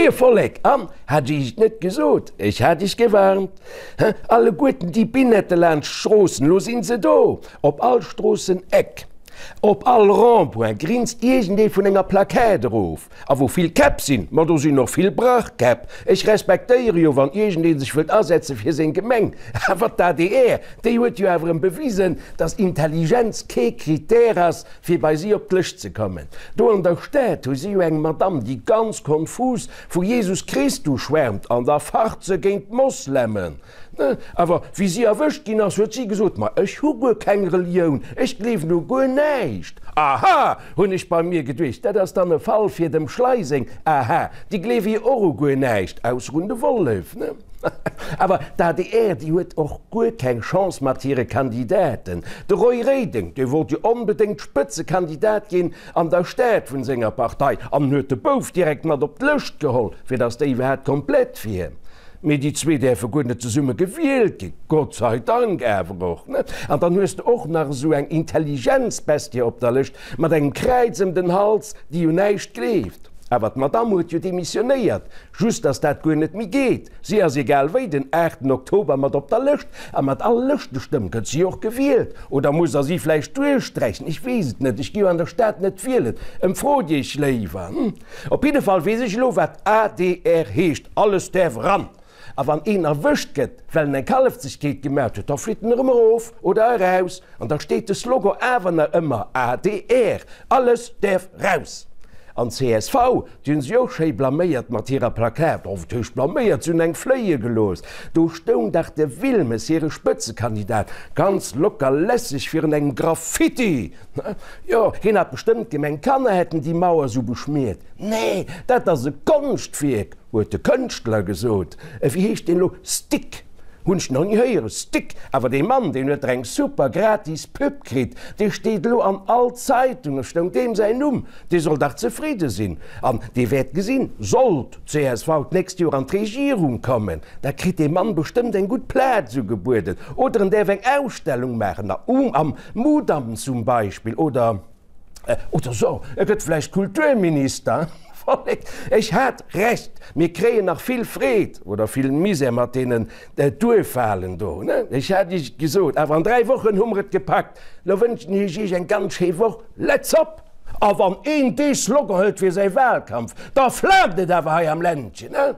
Moie Vollek! An, hat ech iech et net gesot? Ech hat iech gewarnt! He, alleguerten déi Binette laanscht d'Stroossen, lo sinn se do! Op all Stroosseneck, op all Rond-point grinst iergendee vun enger Plaquette erof. A wou vill Käpp sinn, ma do sinn och vill Brachkäpp. Ech respektéiere jo, wann iergendee sech wëllt asetze fir seng Gemeng. Awer d'ADR, déi huet jo awer erëm bewisen, datt Intelligenz kee Critère ass, fir bei si op d'Lëscht ze kommen. Do an der Stad hu si jo eng Madamm, déi ganz konfus vu Jesus Christus schwärmt an da facht se géint d'Moslemen. Awer wéi si erwëscht ginn ass, huet si gesot, Ma ech hu guer keng Relioun, ech gleewen u guer näischt. Aha, hunn ech bei mir geduecht, dat ass dann e Fall fir dem Schlei seng Aha, déi gleewe jo och u guer näischt, ausser un de Wollef. Awer d'ADR, déi huet och guer keng Chance mat hire Kandidaten. De Roy Reding, dee wollt jo onbedéngt Spëtzekandidat ginn an der Stad vun senger Partei an huet de Bouf direkt mat op d'Lëscht geholl, fir datt déi iwwerhaapt komplett wier. Mee déi zwee däerfe guer net zesumme gewielt ginn, Gott sei Dank awer och, ne? An dann hues de och nach esou eng Intelligenzbestie op der Lëscht mat engem Kräiz ëm den Hals, déi un näischt gleeft. Awer d'Madamm huet jo demissionéiert, just dass dat guer net méi geet. Si ass egal wéi den aachten Oktober mat op der Lëscht a mat all Lëschtestëmm gëtt si och gewielt. Oder muss der si vläicht duerchsträichen? Ech weess et net, ech gi jo an der Stad net wielen. Emfrot iech léiwer. Op jidde Fall weess ech elo wat adr heescht, alles däerf eran. A wann een erwëscht gëtt, well en eng Kallefzegkeet gemaat huet, da flitt en erëm erof oder eraus an da steet de Slogan awer nach ëmmer, adr, alles däerf raus. An csv, déi hunn sech och schéi blaméiert mat hirer Plakat, oh wat heescht blaméiert, se hunn eng fléie gelooss. Do stoung dach de Wilmes, hire Spëtzekandidat, ganz locker lässeg virun engem Graffiti. Jo, hien hat bestëmmt gemengt, Kanner hätten déi Mauer sou beschmiert. Nee, dat ass e Konschtwierk! Huet de Kënschtler gesot. Wéi heescht deen elo? Stick! Hunn ech nach ni héieren. Stick! Awer dee Mann, deen huet der eng super gratis Pub kritt. Dee steet elo an all Zeitung, stoung deem säin Numm. Dee soll dach zefridde sinn. An dee wäert gesinn, sollt d'CSV d'nächst Joer an d'Regierung kommen, da kritt dee Mann bestëmmt eng gutt Plaz ugebueden. Oder en däerf eng Ausstellung maachen, am Mudam zum Beispill, oder. Oder so, e gëtt vläicht Kulturminister. Vollek, ech hat Recht, mir kréien nach vill Freed oder vill Misär mat deenen Duerfwahlen do, ne? Ech hat Iech et gesot, awer an 3 Wochen hu mer et gepackt. Lo wënschen ech Iech eng ganz schéi Woch. Let's op! A wann een dee Slogan hëlt fir säi Wahlkampf, da flaamt et awer hei am Ländchen, ne?